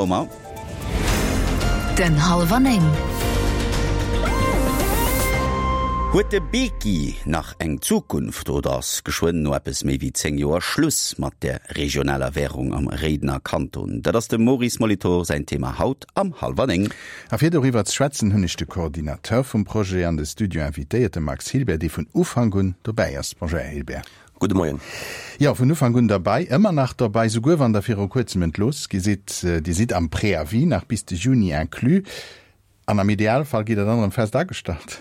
Omar. Den Halwer Néng. Huet de Beki nach eng Zukunft oder ass geschwënn no eppes méi wéi 10 Joer Schluss mat der regionaler Wärung am Réidener Kanton? Dat ass dem Maurice Molitor säin Thema haut am Halwer 9. A fir doriwwer ze schwätzen, hunn ech de Coordinateur vum Projet an de Studio invitéiert, de Max Hilbert, dee vun Ufank un dobäi ass. Bonjour, Här Hilbert. Gudde Moien. Jo, vun Ufank un derbei, ëmmer nach derbei, souguer wann Der viru kuerzem entlooss gi sidd. Dir sidd am Préavis nach bis de Juni inclus. An am Idealfall gitt Der dann erëm fest agestallt.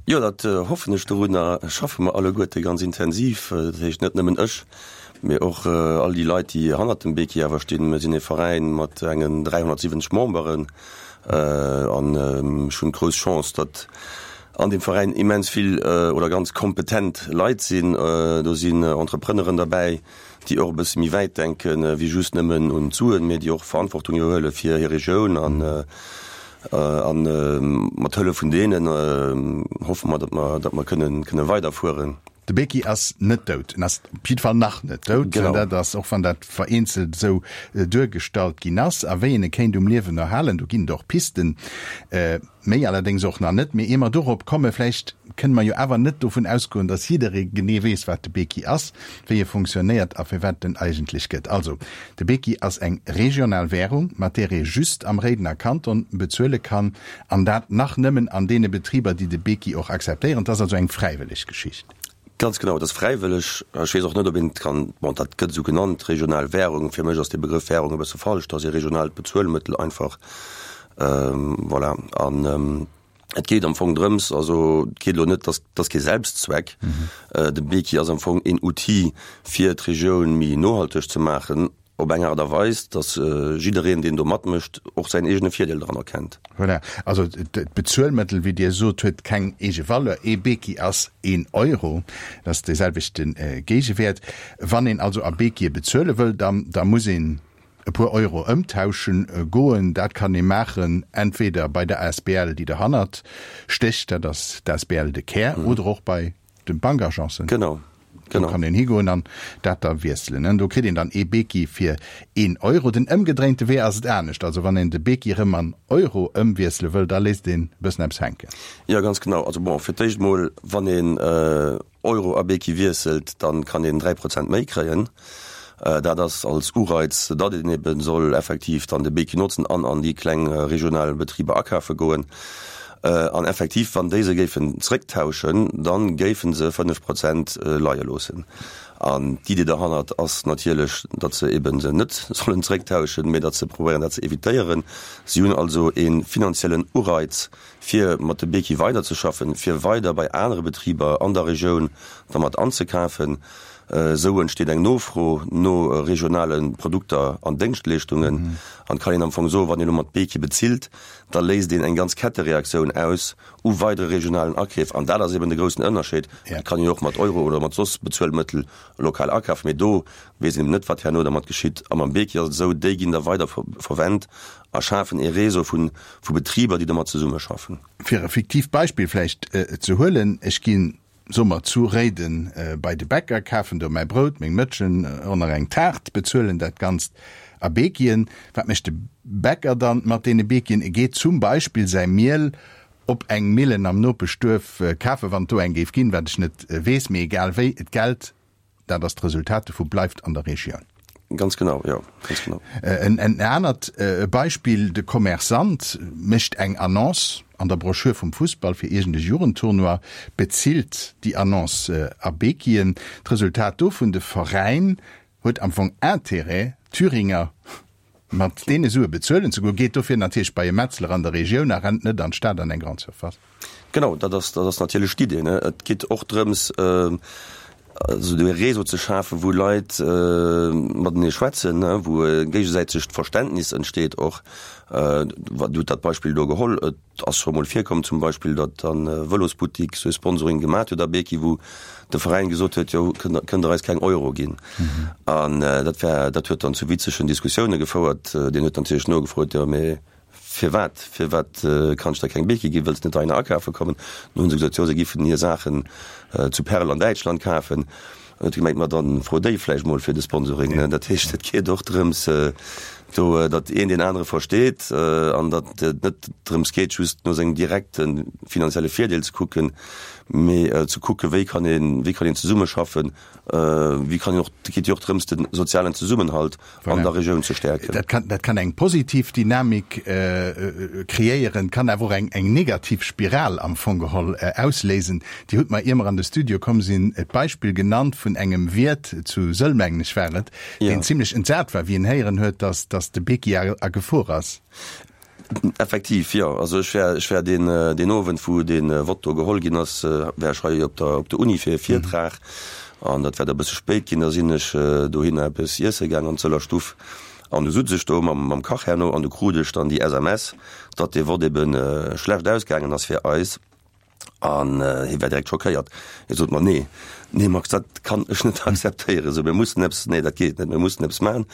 Jo, dat hoffen ech. Dorunner schaffe mer alleguerte ganz intensiv. Dat heescht net nëmmen ech, mee och all déi Leit, déi hannert dem Beki awer stinn. Mir sinn ee Veräin mat engen 370 Memberen an ech hunn d'grouss Chance, datt an deem Veräin immens vill oder ganz kompetent Leit sinn. Do sinn Entrepreneuren derbäi, déi och e bësse méi wäit denke wéi just nëmmen un d'Suen, mee déi och Verantwortung iwwerhuele fir hir Regioun. An a mat Hëllef vun deenen hoffe mer, datt mer, datt mer kënnen, kënne weiderfueren. De Beki ass net dout. En ass op jidde Fall nach net dout. Genau. Dat ass, och wann dat vereenzelt esou duergestallt ginn ass. A wéi een e kéint um Liewen erhalen, do ginn et och Pisten. Méi allerdéngs och nach net. Mee ier mer dorop kommen, vläicht kënne mer jo awer net dovun ausgoen, datt jidderee genee weess, wat de Beki ass, wéi e funktionéiert a firwat et en eigentlech gëtt. Also, de Beki ass eng regional Währung, mat där ee just am Réidener Kanton bezuele kann, an dat nach nëmmen an deene Betriber, déi de Beki och akzeptéieren. Et ass also eng fräiwëlleg Geschicht. Ganz genau, et ass fräiwëlleg. Ech weess och net, ob een et kann, bon, dat gëtt esou genannt, regional Währung. Fir mech ass dee Begrëff Währung e bësse falsch. Et ass ee regionaalt Bezuelmëttel einfach. Voilà. An et geet am Fong drëms, also et geet elo net, dass, dass kee Selbstzweck. De Beki ass am Fong een Outil, fir d'Regioun méi nohalteg ze maachen, op eng Aart a Weis, dass jiddereen, deen do matmécht, och säin eegene Virdeel dran erkennt. Voilà. Also d'Bezuelmëttel, wéi Dir sot, huet keng eege Valeur. Ee Beki ass een Euro, dat ass dee selwechte Géigewäert. Wann een also a Bekie bezuele wëll, da, da muss een e puer Euro ëmtauschen goen. Dat kann ee maachen entweder bei der asbl, déi derhannert stécht, dat ass d'asbl De Kär, oder och bei de Bankagencen. Genau, Do genau. kann een higoen an dat da wiesselen. Do kritt een dann ee Beki fir een Euro. Den ëmgedréinte Wee ass et anescht. Also wann een de Beki erëm an Euro ëmwiessele wëll, da léisst een e bëssen eppes hänken. Jo, ganz genau. Also bon, fir d'éischt mol, wann een Euro a Beki wiesselt, dann kann een 3 Prozent méi kréien. Dat ass als Ureiz, datt een eben soll effektiv dann de Beki notzen an an déi kleng regional Betriber akafe goen. An effektiv, wann déi se géifen zrécktauschen, da géife se 5 Prozent leie loossen. An d'Idee derhannert ass natierlech, datt se eben se net sollen zrécktauschen, mee datt se probéieren dat ze evitéieren. Si hunn also ee finanziellen Ureiz, fir mat de Beki weiderzeschaffen, fir weider bei anere Betriber an der Regioun dermat anzekafen. Esou entsteet eng Nofro no regionale Produkter an Déngschtleeschtungen. An et kann een am Fong soen, wann een elo mat Beki bezilt, da léist een eng ganz Kettereaktioun aus u weidere regionalen Akeef. An dat ass eben de groussen Ënnerscheed. Et kann een jo och mat Euro oder mat soss Bezuelmëttel lokal akafen, mee do weess een eben net, wat herno dermat geschitt. A mam Beki ass et esou, déi ginn da weider verwent a schafen ee Réseau vu vu Betriber, déi domat zesummeschaffen. Fir e fiktiivt Beispill vläicht ze huelen, Ech ginn, soe mer, zu Réiden bei de Bäcker, kafen do mäi Brout, meng Mëtschen och nach eng Taart, bezuelen dat Ganzt a Bekien. Wat mécht de Bäcker dann mat deene Bekien? E geet zum Beispill säi Miel op eng Millen am Nopeschduerf kafen, wann et do eng géif ginn, wat ech net weess, mee egal wéi, d'Geld Dat ass d'Resultat dovu bleift an der Regioun. Ganz genau, jo, ganz genau. En anert Beispill, De Commerçant mécht eng Annonce an der Broschür vum Fussball fir iergend e Jugendtournoi, bezilt déi Annonce a Bekien. D'Resultat dovun, De Veräin huet am Fong Intérêt, Thüringer mat deene Sue bezuelen ze goen, geet dofir natierlech bei e Metzler an der Regioun a rennt net an d'Stad an eng Grande Surface. Genau, dat ass, dat ass natierlech d'Idee, ne. Et geet och drëms, esou e Réseau ze schafen, wou Leit matenee schwätzen, ne, wou e géigesäitegt Verständnis entsteet och. Dir hutt dat Beispill do geholl, et ass scho mol virkomm zum Beispill, datt e Vëlosbuttik sou e Sponsoring gemat huet a Beki, wou de Veräin gesot huet, jo, kënnt Der eis keng Euro ginn. An dat war, dat huet dann zu witzegen Diskussioune gefouert. Deen huet natierlech nogefrot, jo, mee Firwat? Firwat kann ech der keng Beki ginn? Wëlls de net heihinner akafe kommen? Dann hu se gesot, jo, se giffen hir Saachen zu Perl an Däitschland kafen. An huet e gemengt, ma dann fro déi vläicht mol fir de Sponsoring. Dat heescht, et geet och drëms. Do, datt een deen anere versteet an datt et net drëms geet, just no sengem direkte finanzielle Virdeel ze kucken, mee ze kucken, wéi kann een, wéi kann een zesummeschaffen, wéi kann een och, et geet jo och drëms, de sozialen Zesummenhalt an der Regioun ze stäerken. Dat kann, dat kann eng positiv Dynamik kreéieren, kann awer och eng, eng negativ Spiral am Fong geholl ausléisen. Dir hutt mer, ier mer an de Studio komm sinn, d'Beispill genannt vun engem Wiert zu Sëll, mengen ech war et, deen zimlech entsat war, wéi en héieren huet, dass, dass de Beki a, a Gefor ass. Effektiv, jo. Also ech war, ech war deen, deen Owend, wou dee Vott do geholl ginn ass, war ech hei op der, op der Uni fir e Virtrag. An dat war da e bësse spéit ginn. Da sinn ech dohinner eppes iesse gaang an d'Sëller Stuff. An du sutz ech do mam, mam Kach herno an du krut ech dann déi SMS, datt dee Vott ebe schlecht ausgaangen ass fir eis. An hie war direkt schockéiert. Hie sot mer, Nee, nee Max, dat kann ech net akzeptéieren. Esou, mir mussen eppes, nee, dat geet net, mir mussen eppes maachen.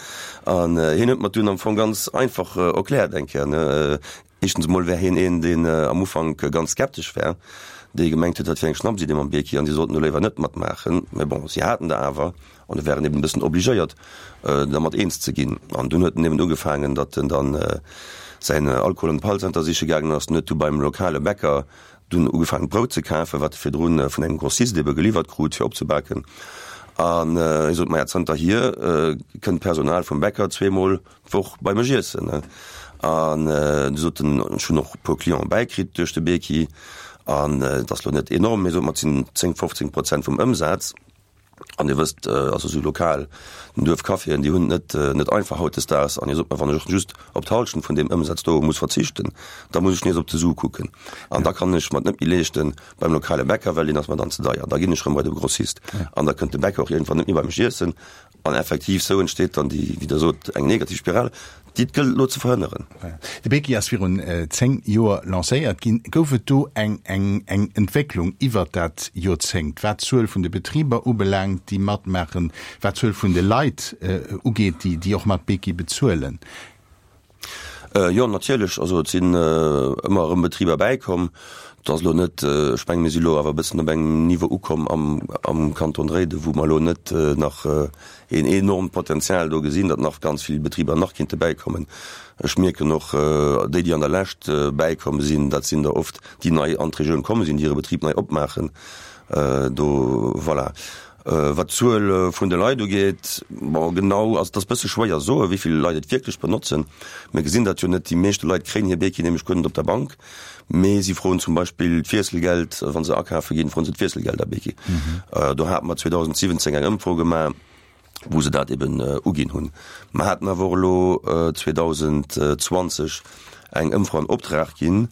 An hien huet mer dunn am Fong ganz einfach erkläert eng Kéier, ne, éischtens emol wär hien een, deen am Ufank ganz skeptesch war, dee gemengt huet, dat wier eng Schnapsidee mam Bierki an si sollten do léiwer net matmaachen. Mä bon, si haten der awer an e waren eben e bëssen obligéiert, dermat eens ze ginn. An dunn huet en eben ugefaangen, datt en dann säin Alkohol an d'Pall-Center siche gaangen ass. En huet du beim lokale Bäcker dunn ugefaangen, Brout ze kafen, wat e virdru vun engem Grossist ebe geliwwert krut, fir opzebaken. An hie sot, Maja, zanterhier kënnt d'Personal vum Bäcker zweemol d'Woch bei mech iessen. An du sot en, ech hunn och e puer Clienten bäikritt duerch de Beki. An et ass lo net enorm, mee sot mer, et sinn 10, 15 Prozent vum Ëmsaz. An Dir wësst, also esou lokal, den Duerfcaféen, déi hunn et net, net einfach hautdesdaags. An Dir sot mer, wann ech och just op d'Hallschent vun deem Ëmsaz do muss verzichten, da muss ech nees op de Su kucken. An da kann ech mer et net méi leeschten beim lokale Bäcker, well deen ass mer dann ze deier. Da ginn ech erëm bei de Grossist. An da kënnt de Bäcker och iergendwann net méi bei mech iessen. An effektiv, esou entsteet dann déi, wéi Der sot, eng negativ Spiral, déi et gëllt elo ze verhënneren. De Beki ass virun 10 Joer lancéiert ginn. Gouf et do eng eng Entwécklung iwwert dat Joerzéngt, wat d'Zuel vun de Betriber ubelaangt, déi matmaachen, wat d'Zuel vun de Leit ugeet, déi och mat Beki bezuelen? Jo, natierlech. Also et sinn ëmmer erëm Betriber bäikomm. Et ass elo net, ech mengen, mir si elo awer e bëssen op engem Niveau ukomm am, am Kanton Réiden, wou mer elo net nach een enormt Potenzial do gesinn, datt nach ganz vill Betriber nach kinnte bäikommen. Ech mierken och, déi, déi an der Lescht bäikomm sinn, dat sinn der oft, déi nei an d'Regioun komm sinn, déi hire Betrib nei opmaachen. Do, voilà. Wat d'Zuel vun de Leit ugeet, bon, genau, also et ass e bësse schwéier soen, wéi vill Leit et wierklech benotzen. Mir gesinn dat jo net, déi meeschte Leit kréien hir Beki nämlech guer net op der Bank, mee si froen zum Beispill d'Wiesselgeld, wa se akafe ginn, froen se d'Wiesselgeld a Beki. Do hate mer 2017 eng Ëmfro gemaach, wou se dat eben uginn hunn. Mer haten awer och elo 2020 eng Ëmfro an Optrag ginn,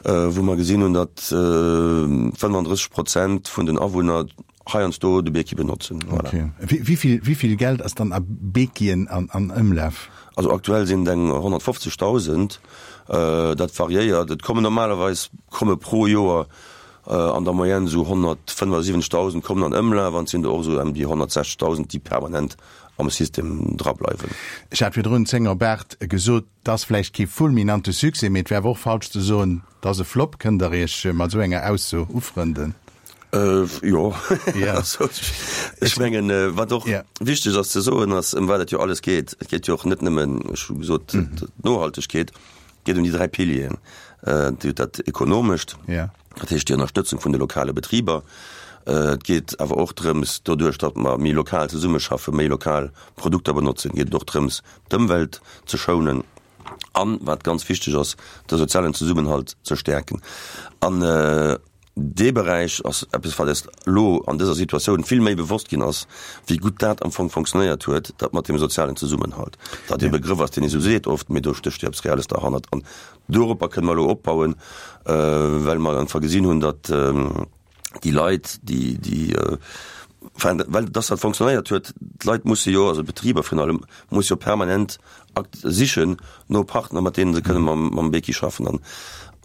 wou mer gesinn hunn, datt 35 Prozent vun den Awunner heiansdo de Beki benotzen. Voilà. Okay. Wéi vill, wéi vill Geld ass dann a Bekien an, an Ëmlaf? Also aktuell sinn et eng 150.000. Dat variéiert. Et kommen normalerweis komme pro Joer an der Moyenne esou 175.000 kommen an Ëmlaf an et sinn der och esou ëm déi 160.000, déi permanent am System drableiwen. Ech hat virdrun 10 op 8 gesot. 't ass vläicht kee fulminante Succès, mee et wär awer och falsch ze soen, 't ass e Flop. Kënnt Der Iech mat esou enger Ausso ufrënden? Jo, ech mengen, wat och wichteg ass ze soen, ass, ëm wat et jo alles geet. Et geet jo och net nëmmen, ech hu gesot, d'Nohaltegkeet, et geet ëm déi 3 Pilieren, dat Ekonomescht, dat heescht déi Ënnerstëtzung vun de lokale Betriber. Et geet awer och drëms, doduerch datt mer méi lokal zesummeschaffen, méi lokal Produkter benotzen, geet et och drëms, d'Ëmwelt ze schounen an, wat ganz wichteg ass, de sozialen Zesummenhalt ze stäerken. An dee Beräich ass eppes, wat eis elo an dëser Situatioun vill méi bewosst ginn ass, wéi gutt dat am Fong fonctionnéiert huet, dat mat deem sozialen Zesummenhalt. Dat e Begrëff ass, deen ee sou seet oft, mee do stécht jo eppes Reelles derhannert. An doropper kënne mer elo opbauen, well mer einfach gesinn hunn, datt, déi Leit, déi, déi, enfin, well dass dat fonctionnéiert huet, d'Leit musse jo, also d'Betriber virun allem, musse jo permanent akt sichen no Partner, mat deene se kënne mam, mam Beki schaffen. An,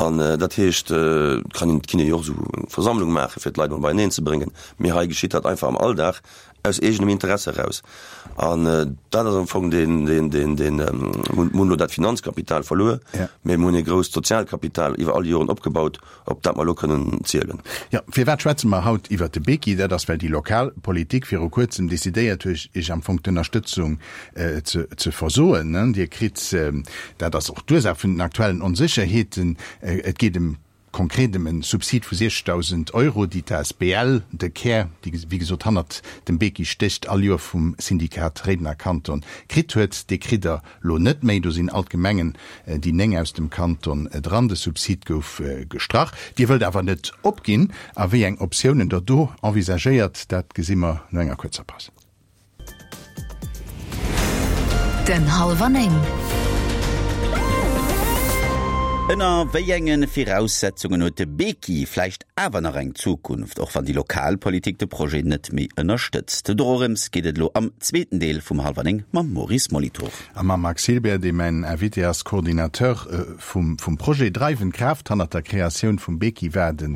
an dat heescht, et kann een, et kinne jo och esou eng Versammlung maachen, fir d'Leit emol beieneen ze bréngen, mee hei geschitt dat einfach am Alldag. Aus eegenem Interesse eraus. An dat ass am Fong deen, deen, deen, deen, mir hunn elo dat Finanzkapital verluer, mä mir hunn e grousst Sozialkapital iwwer all déi Joren opgebaut, op dat mer elo kënnen zielen. Jo, firwat schwätze mer haut iwwert de Beki? Dat ass, well déi lokal Politik viru Kuerzem decidéiert huet, Iech am Fong d'Ënnerstëtzung ze, ze versoen. Dir kritt, dat ass och d'Ursaach vun den aktuellen Onsécherheeten, et geet ëm Konkret ëm en Subsid vu 60.000 Euro, déi d'ASBL De Kär, déi wéi gesot hannert dem Beki stécht, all Joer vum Syndikat Réidener Kanton kritt huet. Dee kritt der lo net méi. Do sinn all d'Gemengen, déi 9 aus dem Kanton, dran. De Subsid gouf gestrach. Dir wëllt awer net opginn. A wéi eng Optiounen der do envisagéiert, dat gesi mer no enger kuerzer Paus. Den Halwer 9. Ënner wéi enge Viraussetzungen huet de Beki vläicht awer nach eng Zukunft, och wann déi lokal Politik de Projet net méi ënnerstëtzt? Dorëms geet et elo am zweeten Deel vum Halwer 9 mam Maurice Molitor. A mam Max Hilbert, dee mäin Invité ass, Coordinateur vum Projet. Dreiwend Kraaft hannert der Kreatioun vum Beki war de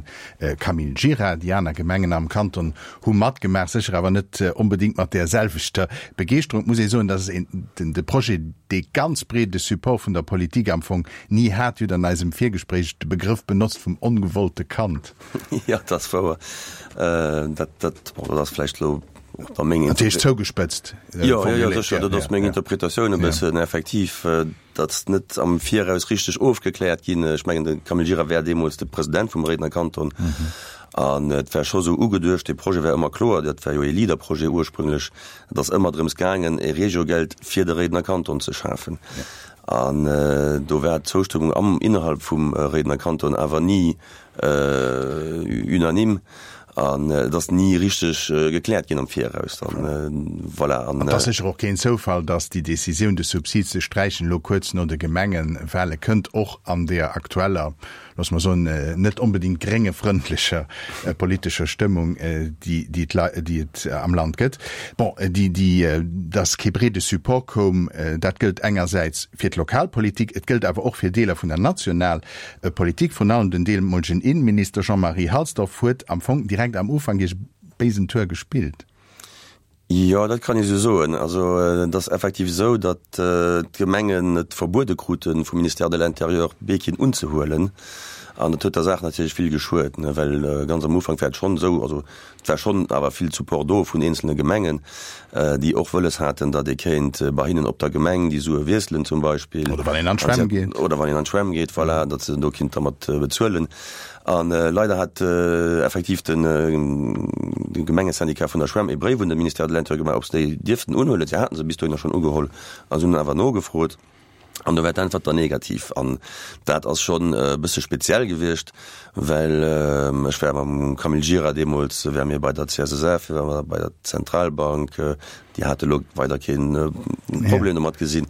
Camille Gira. Déi aner Gemengen am Kanton hu matgemaach, sécher awer net onbedéngt mat där selwechter Begeeschterung. Et muss ee soen, dass een de Projet dee ganz breede Support vun der Politik am Fong ni hat. Dir hutt an eisem Virgespréich de Begrëff benotzt vum ongewollte Kand. Jo, dat ass wouer. Dat, dat, bon, dat ass vläicht elo och da meng. Natierlech zougespëtzt formuléiert. Jo, jo, jo, sécher, dat ass meng Interpretatioun e bëssen, effektiv. Dat ass net am Viraus richteg ofgekläert ginn. Ech mengen, de Camille Gira war deemools de President vum Réidener Kanton. An et war scho sou ugeduecht, dee Projet war ëmmer kloer, dat war jo ee Leader-Projet ursprünglech, et ass ëmmer drëms gaangen, e Regiogeld fir de Réidener Kanton ze schafen. An do war d'Zoustëmmung am, innerhalb vum Réidener Kanton awer ni Unanime an et ass ni richteg gekläert ginn am Viraus dann. Voilà. An et ass sécher och keen Zoufall, datt déi Decisioun, de Subsid ze sträichen, elo kuerz no de Gemengewale kënnt, och an deer aktueller, loosse mer soen, net onbedéngt gréngefrëndlecher politescher Stëmmung, déi déi et am Land gëtt. Bon, déi déi datt kee breede Support koum, dat gëllt engersäits fir d'Lokalpolitik, et gëllt awer och fir Deeler vun der National Politik, vrun allem den deemolegen Innenminister Jean-Marie Halsdorf huet am Fong direkt am Ufank iech béisen Tour gespillt. Jo, dat kann ee sou soen. Also et ass effektiv esou, datt d'Gemengen et verbuede krute vum Ministère de l'Intérieur, Beekien unzehuelen. An dat huet der Saach natierlech vill geschuet, well ganz am Ufank war et schonn esou, also Et war schonn awer vill Support do vun eenzelne Gemengen, déi och wëlles haten, datt ee kéint bei hinnen op der Gemeng déi Sue wiesselen zum Beispill. Oder wann een an d'Schwämm geet. Oder wann een an d'Schwämm geet, voilà, datt se do kinnt dermat bezuelen. A leider hat effektiv de Gemengesyndicat vun der Schwämm ee Bréif un de Ministère de l'Intérieur gemaach, ob se déi dierften unhuelen. Si haten se bis dohinner schonn ugeholl a se hunn awer nogefrot. An do war d'Äntwert dann negativ. An dat ass schonn e bësse speziell gewiescht, well ech war mam Camille Gira deemools, ware mir bei der CSSF, ware mer bei der Zentralbank, déi hate lo weider kee Problem domat gesinn.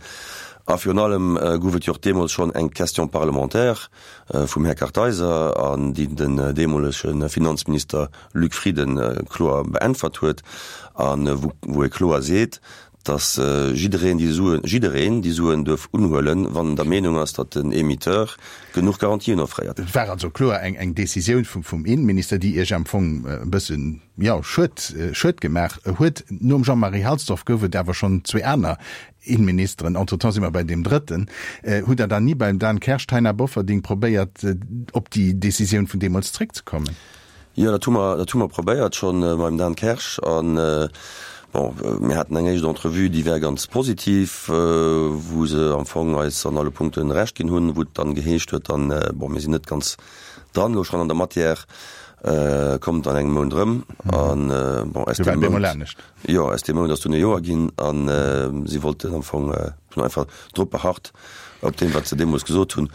A virun allem gouf et jo och deemools schonn eng Question parlementaire vum Här Kartheiser, an déi den deemolege Finanzminister Luc Frieden kloer beäntwert huet a wou e kloer seet, dass jiddereen déi Suen, jiddereen déi Suen duerf unhuelen, wann en der Meenung ass, datt den Émetteur genuch Garantien offréiert. Et war also kloer eng eng Décisioun vum vum Innenminister, déi Iech am Fong e bëssen, jo, Schued, Schued gemaach huet. Nom Jean-Marie Halsdorf gouf et awer schonn zwee aner Innenministeren, entretemps si mer bei deem drëtten. Hutt Der dann ni beim Dan Kersch, Taina Bofferding probéiert, op déi Décisioun vun deemools zréckzekommen? Jo, dat hu mer, dat hu mer probéiert schonn beim Dan Kersch. An, bon, mir haten eng éischt Entrevue, déi war ganz positiv, wou se am Fong eis an alle Punkte Recht ginn hunn, wou et dann geheescht huet dann, bon, mir sinn net ganz dran elo schonn an der Matière, kommt an engem Mount erëm. An, bon, aus deem Mount, jo, aus deem Mount ass dunn e Joer ginn an si wollten am Fong, hunn einfach drop beharrt op deem, wat se deemools gesot hunn.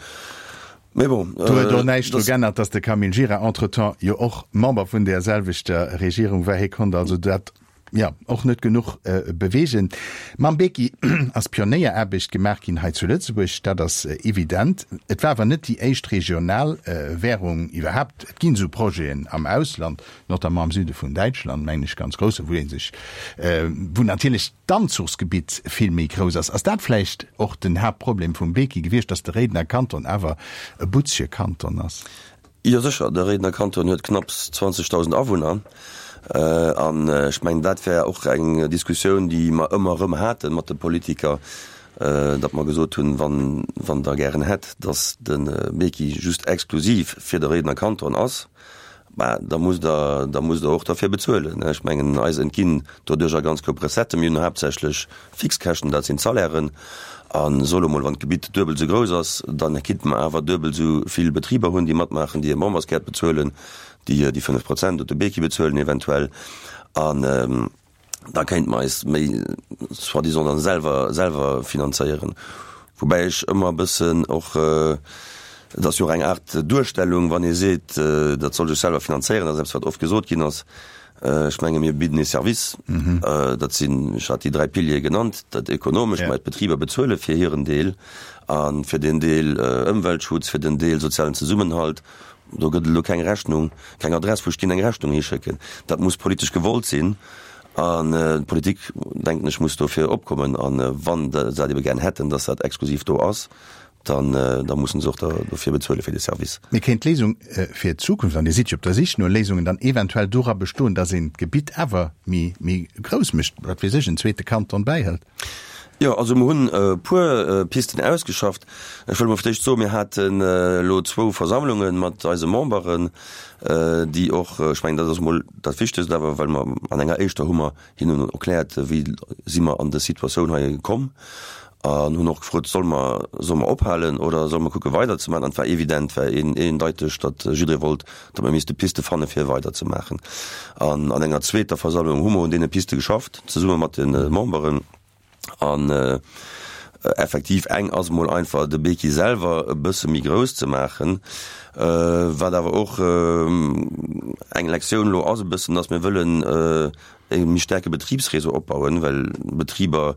Mee bon, Do huet och näischt dru g'ännert, datt de Camille Gira entretemps jo och Member vun där selwechter Regierung war. Hie konnt also dat, jo, och net genuch beweegen. Mam Beki ass Pionéieraarbecht gemaach ginn hei zu Lëtzebuerg, dat ass evident. Et war awer net déi éischt regional Währung iwwerhaapt. Et ginn esou Projeten am Ausland, notamment am Süde vun Däitschland, mengen ech, ganz grouss, wou ee sech, wou natierlech d'Anzuchsgebitt vill méi grouss ass. Ass dat vläicht och den Haaptproblem vum Beki gewiescht, datt de Réidener Kanton awer e butzege Kanton ass? Jo sécher, de Réidener Kanton huet knapps 20.000 Awunner. An ech mengen, dat wär och eng Diskussioun, déi mer ëmmer erëm hate mat de Politiker, datt mer gesot hunn, wann, wann Der gären hätt, datt de Beki just exklusiv fir de Réidener Kanton ass, bah, da musst Der, da musst Der och derfir bezuelen. Ech mengen, eis entginn doduercher ganz koup Recetten. Mir hunn haaptsächlech Fixkäschten, dat sinn d'Salairen. A soe lo mol, wann d'Gebitt duebel esou grouss ass, da kinnte mer awer duebel esou vill Betriber hunn, déi matmaachen, déi hir Memberskaart bezuelen, déi déi 5 Prozent op de Beki bezuelen eventuell. An da kéinte mer eis méi soi-disant dann selwer, selwer finanzéieren. Woubäi ech ëmmer e bëssen och, et ass jo och eng Aart Duerstellung, wann ee seet, dat soll sech selwer finanzéieren, dat ass eppes, wat oft gesot ginn ass. Ech menge mir bidden ee Service, dat sinn, ech hat déi 3 Piliere genannt, dat Ekonomescht, mä d'Betriber bezuele fir hiren Deel a fir den Deel Ëmweltschutz, fir den Deel sozialen Zesummenhalt, do gëtt et elo keng Rechnung, keng Adress, wou ech ginn eng Rechnung hischécken. Dat muss politesch gewollt sinn an d'Politik, denken ech, muss dofir opkommen. A wann se dat ebe gär hätten, datt dat exklusiv do ass, dann da mussen se och dofir bezuele fir de Service. Mee kéint d'Léisung fir d'Zukunft, an Dir sidd jo op der Sich no Léisungen, dann eventuell dora bestoen, datt een d'Gebitt awer méi méi grouss mécht, wat weess ech, en zweete Kanton bäihëlt? Jo, also mer hunn e puer Pisten ausgeschafft. Ech wëll emol fir d'éischt soen, mir haten elo zwou Versammlunge mat eise Memberen, déi och, ech mengen, dat ass emol dat Wichtegst awer, well mer an enger éischter hu mer hinnen erkläert, wéi si mer an dës Situatioun hei komm an hunn och gefrot, solle mer, solle mer ophalen oder solle mer kucke weiderzemaachen. An et war evident, war een, eendeiteg, datt jidderee wollt, datt mer misste Piste fanne fir weiderzemaachen. An an enger zweeter Versammlung hu mer un deene Piste geschafft, zesumme mat de Memberen. An effektiv, eng ass emol einfach, de Beki selwer e bësse méi grouss ze maachen, wat awer och eng Lektioun elo ass e bëssen, datt mir wëllen e méi staarke Betribsréseau opbauen, well Betriber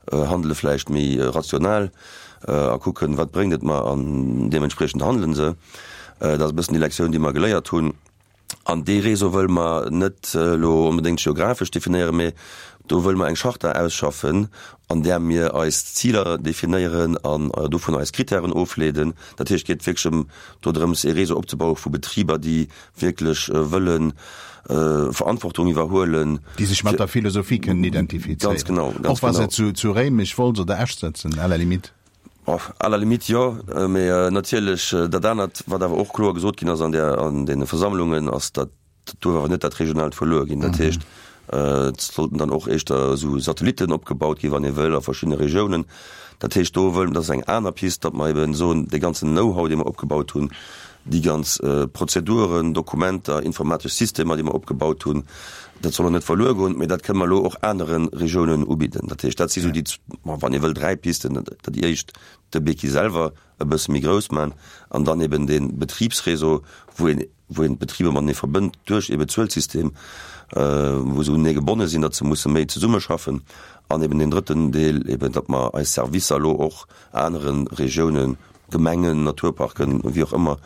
handele vläicht méi rational a kucken, wat bréngt et mer an deementspriechend handele se. Dat ass e bëssen déi Lektioun, déi mer geléiert hunn. An dee Réseau wëlle mer net elo onbedéngt geographesch definéieren, mee do wëlle mer eng Charta ausschaffen, an där mir eis Ziler definéieren an dovun eis Kritären ofleeden. Dat heescht, et geet wierklech ëm dodrëms, ee Réseau opzebaue vu Betriber, déi wierklech wëlle Verantwortung iwwerhuelen. Déi sech mat der Philosophie kënnen identifizéieren. Ganz genau, ganz genau. Och wa se zu, zu Réimech, Wolz oder Esch sëtzen, à la limite. À la limite jo, mee natierlech dat anert, wat awer och kloer gesot ginn ass an där, an deene Versammlungen, ass, datt dat duerf awer net dat regionaalt verluer ginn. Dat heescht, et sollten dann och éischter esou Satellitten opgebaut ginn, wann ee wëll, a verschiddene Regiounen. Dat heescht, do wëll, dat ass eng aner Pist, datt mer eben soen, dee ganzen Know-how, dee mer opgebaut hunn, déi ganz Prozeduren, Dokumenter, informatesch Systemer, déi mer opgebaut hunn, dat soll och net verluer goen, mee dat kënne mer elo och anere Regiounen ubidden. Dat heescht, dat si sou déi, wann ee wëll, dräi Pisten. Déi éischt, de Beki selwer e bësse méi grouss maachen an dann eben dee Betribsréseau, wou een, wou een d'Betriber matenee verbënnt duerch ee Bezuelsystem, wou se unenee gebonne sinn, datt se musse méi zesummeschaffen an eben deen drëtten Deel eben, datt mer eis Servicer elo och anere Regiounen, Gemengen, Naturparken, wéi och ëmmer,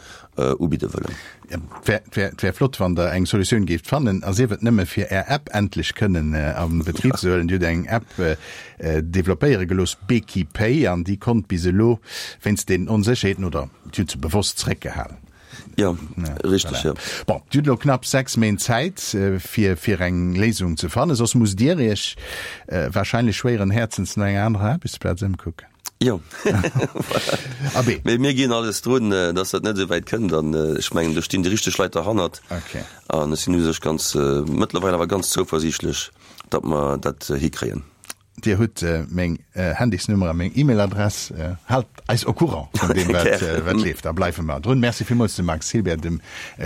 ubidde wëllen. Et wär flott, wann Der eng Solutioun géift fannen, a sief et nëmme fir Är App endlech kënnen a Betrib ze huelen. Dir hutt eng App developpéiere gelooss, Beki Pay, an déi konnt bis elo wéinst den Onsécherheeten, oder Dir hutt se bewosst zréckgehalen, Jo, richteg, jo. Bon, Dir hutt elo knapp 6 Méint Zäit, fir fir eng Léisung ze fannen. Soss musst Dir Iech wahrscheinlech schwéieren Häerzens no enger anerer Aarbechtsplaz ëmkucken. Jo, voilà. Mee mir ginn alles drun, dass dat net esou wäit kënnt. An ech mengen, do stinn déi richteg Leit derhannert. An ech sinn u sech ganz, mëttlerweil awer ganz zouversiichtlech, datt mer dat hikréien. Dir hutt meng Handysnummer a meng E-Mail-Adress. Haalt eis au courant vun deem, wat leeft. Da bleiwe mer drun. Merci villmools dem Max Hilbert, dem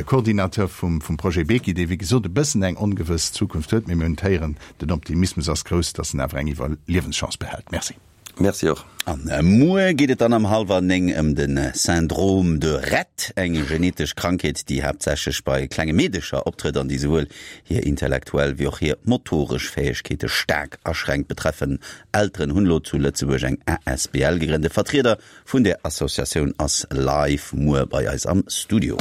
Coordinateur vum Projet Beki, dee wéi gesot e bëssen eng ongewëss Zukunft huet. Mee mir hunn d'Héieren, den Optimismus ass grouss, datt en awer eng Iwwerliewenschance behält. Merci. Merci och. An muer geet et dann am hallwer 9 ëm de Syndrome de Rett, eng genetesch Krankheet, déi haaptsächlech bei klenge Meedecher optrëtt an déi souwuel hir intellektuell wéi och hir motoresch Fäegkeete staark aschränkt. Betreffen Elteren hunn elo zu Lëtzebuerg eng asbl gegrënnt. E Vertrieder vun där Associatioun ass live muer bei eis am Studio.